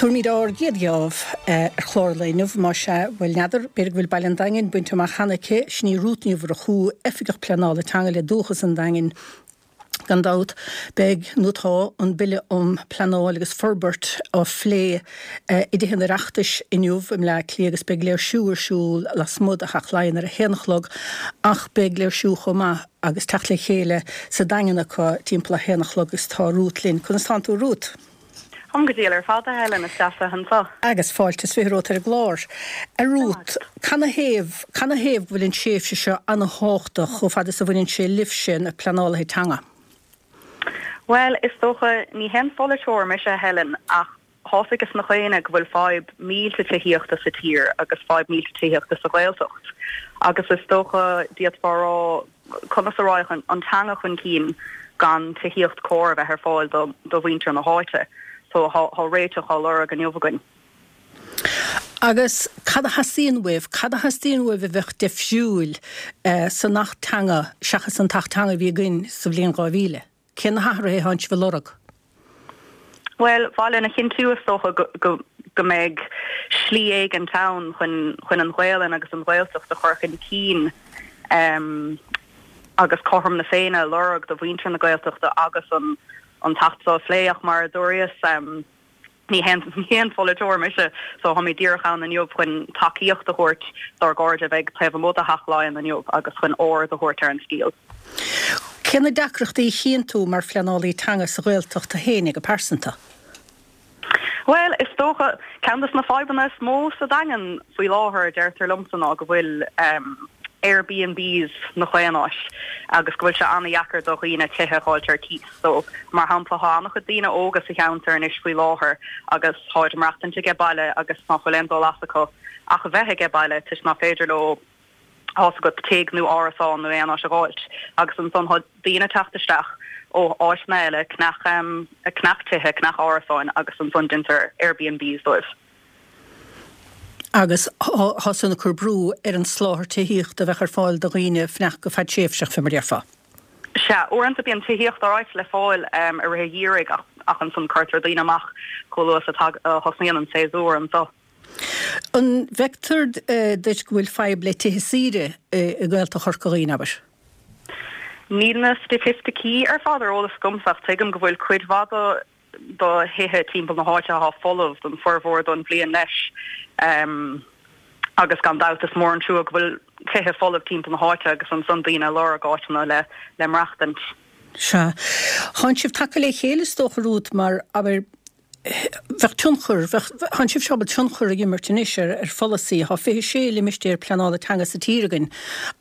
Tabharfaimid ár gcéad gheábh ar chlár an lae inniu, más ea, bhuel, n'fheadar, b'fhéidir go bhfuil baile an Daingin bainte amach cheana aici, sin í Rút Ní Mhurchú, Oifigeach Pleanála Teanga le Dúchas an Daingin. Gan dabht, beidh, nó tá, an Bille um Pleanáil agus Forbairt á phlé i dTithe an Oireachtais inniu i mBleá Cliath agus beidh léirsiú ar siúl lasmuigh de Theach Laighean ar a haon a chlog ach beidh léirsiú chomh maith agus teacht le chéile sa Daingean acu timpeall a haon a chlog agus tá Rút linn. Conas tánn tú a Rút? Táim go diail ar fad, a Helen, is deas a bheith anseo. Agus fáilte is 20 romhat ar an gclár. A Rút, canathaobh, canathaobh go bhfuil an tréimhse seo ana-thábhachtach chomh fada is a bhaineann sé libhse, na pleanálaithe teanga? Bhuel, is dócha, ní haon pholaiteoir mise, a Helen, ach tá's ages na dhaoine go bhfuil fadhb millteach tithíochta sa tír agus fadhb millteach tithíochta sa Ghaeltacht. Agus is dócha, d'fhéadfá a rá, conas a raghadh an teanga chun cinn gan tithíocht cóir a bheith ar fáil do mhuintir na háite. So tá réiteach á lorg inniu againn. Agus cad a theastaíonn uaibh? Cad a theastaíonn uaibh a bheadh deifriúil san Acht Teanga seachas an tAcht Teanga a bhí againn sa bhliain 2000? Cé na hathruithe atánn sibh a lorg? Bhuel, ba mhaith linn a chinntiú, is dócha, go go mbeidh slí éigint ann chun chun an Ghaelainn agus an Ghaeltacht a chur chun cinn agus cothrom na Féinne a lorg do mhuintir na Gaeltachta agus an an tAcht seo a phlé ach mar a dúras, Ní haon pholaiteoir mise so táimid díreach ann inniu chun tacaíocht a thabhairt dár gcairde a bheidh taobh amuigh de Theach Laighean inniu agus chun aird a thabhairt ar an scéal. Cé na deacrachtaí a chíonn tú mar phleanálaí teanga sa Ghaeltacht tú féinig go pearsanta? Bhuel, is dócha, ceann de na fadhbanna is mó sa Daingean faoi láthair, deirtear liomsa, ná go bhfuil Airbnbs 'na chaon áit agus go bhfuil sé an-dheacair do dhaoine tithe a dh'fháilt ar cíos. So, mar shampla, thá an-chuid daoine óga sa cheantar anois faoi láthair agus tháid ag maireachtaint aige baile agus ná fuil aon dul as acu ach a bheith aige baile toisc ná féidir leo, thá's agat, tigh nó árasán nó aon áit a dh'fháilt. Agus ansan thá daoine ag teacht isteach ó áiteanna eile, ag ceannach, ag ceannach tithe, ag ceannach árasáin agus ansan deintear Airbnbs dóibh. Agus thá san ag cur brú ar an soláthar tithíochta a bheadh ar fáil do dhaoine fanacht go fadtréimhseach, fé mar a déarfá. Sea, uaireanta bíonn tithíocht alright le fáil i rith an gheimhridh ach ach ansan cuirtear daoine amach chomh luath is a thosnaíonn an séasúr anso. An bhfeictear duit go bhfuil fadhb le tithe saoire i nGaeltacht Chorca Dhuibhne, abair? Níl na staitisticí ar fad ar eolas agamsa ach tuigim go bhfuil cuid mhaith do do thithe timpeall na háite athá folamh don formhór don bhliain leis agus gan dabht is mór an trua go bhfuil tithe folamh timpeall na háite agus ansan daoine ag lorg áiteanna le le maireachtaint. Sea. Thánn sibh tagtha le chéile is dócha Rút mar, abair, bheadh tionchar, bheadh, thánn sibh ábalta tionchar a imirt anois ar ar pholasaí. Thá 26 limistéar pleanála teanga sa tír againn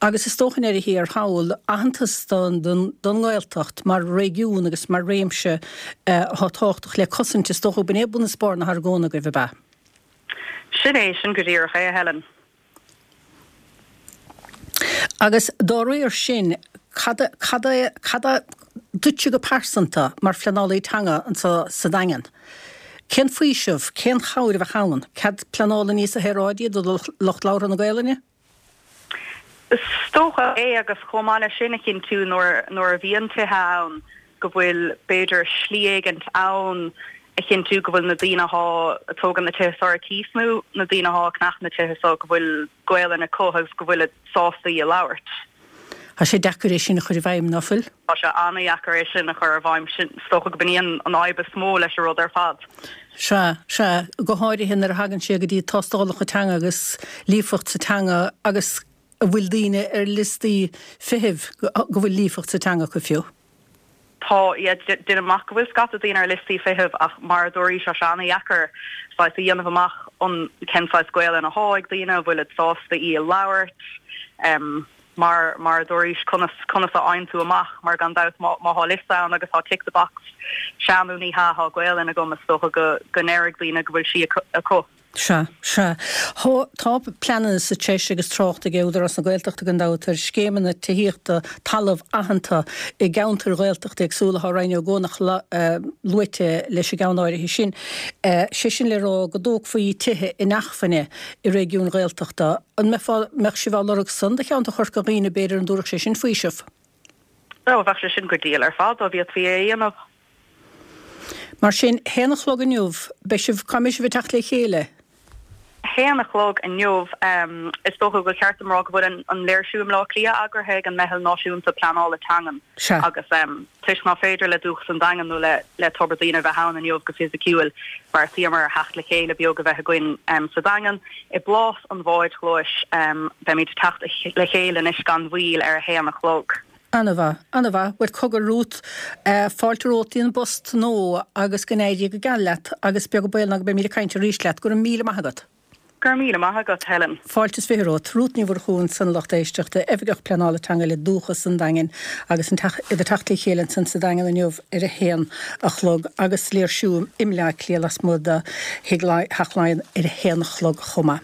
agus is dócha i ndeireadh thiar thall aitheantas don don don nGaeltacht mar réigiún agus mar réimse athá tábhachtach le cosaint, is dócha b'in é bun is barr na hargóna agaibh, ab ea? Sin é, sin go díreach é, a Helen. Agus dá réir sin, cad, cad é, cad é duitse go pearsanta mar phleanálaí teanga anseo sa Daingean? Cén faoiseamh, cén chabhair a bheadh ann? Cead pleanála níos saoráidí do lucht labhartha na Gaelainne? Is dócha é agus chomh maith leis sin a chinntiú nuair nuair a bhíonn tithe ann go bhfuil b'fhéidir slí éigint ann a chinntiú go bhfuil na daoine athá ag tógaint na tithe seo ar cíos nó na daoine athá ag ceannach na tithe seo go bhfuil Gaelainn acu agus go bhfuilid sásta í a labhairt. Tá sé deacair é sin a chur i bhfeidhm, ná fuil? Tá sé an-dheacair é sin a chur i bhfeidhm. Sin, is dócha go b'in í an fhadhb is mó leis an rud ar fad. Sea, sea, go háirithe nuair a thagann sé go dtí tástálacha teanga agus líofacht sa teanga agus an bhfuil daoine ar liostaí feithimh go bhfuil líofacht sa teanga acu fiú. Tá, yeah, deinim amach go bhfuil scata daoine ar liostaí feithimh ach mar a dúraís tá sé an-dheacair saghas a dhéanamh amach an cén saghas Gaelainn athá ag daoine, an bhfuilid sásta í a labhairt, mar mar a dúraís conas conas a fhaigheann tú amach mar gan dabht má má thá liosta ann agus thá tick the box sea nó ní hea thá Gaelainn agam is dócha go go ndéarfaidh daoine go bhfuil sí acu. Sea, sea. Thá, tá pleananna sa treis agus trácht ag Údarás na Gaeltachta gan dabht ar scéimeanna tithíochta talamh aitheanta i gceantair Ghaeltachta éagsúla. Thá Rinn Ó gCuanach luaite leis an gceann áirithe sin. Sé sin le rá go dtógfaí tithe inacmhainne i réigiúin Ghaeltachta. An mbeifeá, mbeadh sibh á lorg san do cheantar Chorca Dhuibhne b'fhéidir, an dtabharfadh sé sin faoiseamh? Ó, bheadh sé sin go diail ar fad dá bhféadfaí é a dhéanamh. Mar sin, haon a chlog inniu, beidh sibh, cá mbeidh sibh ag teacht le chéile? Haon a chlog inniu, is dócha gur cheart dom rá go bhfuil an léirsiú i mBleá Cliath eagraithe ag an Meitheal Náisiúnta Pleanála Teangan agus toisc ná féidir le Dúchas an Daingin nó le Tobar Daoine a bheith ann inniu go fisiciúil, bheartaíomar ar theacht le chéile beag a bheith againn sa Daingean i bPlás an Bháid Chlóis. Beimid ag teacht le chéile anois gan mhoill ar a haon a chlog. An-mhaith, an-mhaith. Bhuel, cogar Ruth, fáilte romhat dtí an bpost nua agus go n-éirí go geal leat agus beag an baol ná go mbeimid ag caint arís leat. Go raibh míle maith agat. Go raibh míle maith agat, Helen. Fáilte is 20 romhat. Ruth Ní Mhurchú ansan, a lucht éisteachta, Oifigeach Pleanála Teanga le Dúchas an Daingin agus an teach, iad ag teacht le chéile ansan sa Daingean inniu ar a haon a chlog agus léirsiú i mBleá Cliath lasmuigh de Thigh Theach Laighean ar a haon a chlog chomh maith.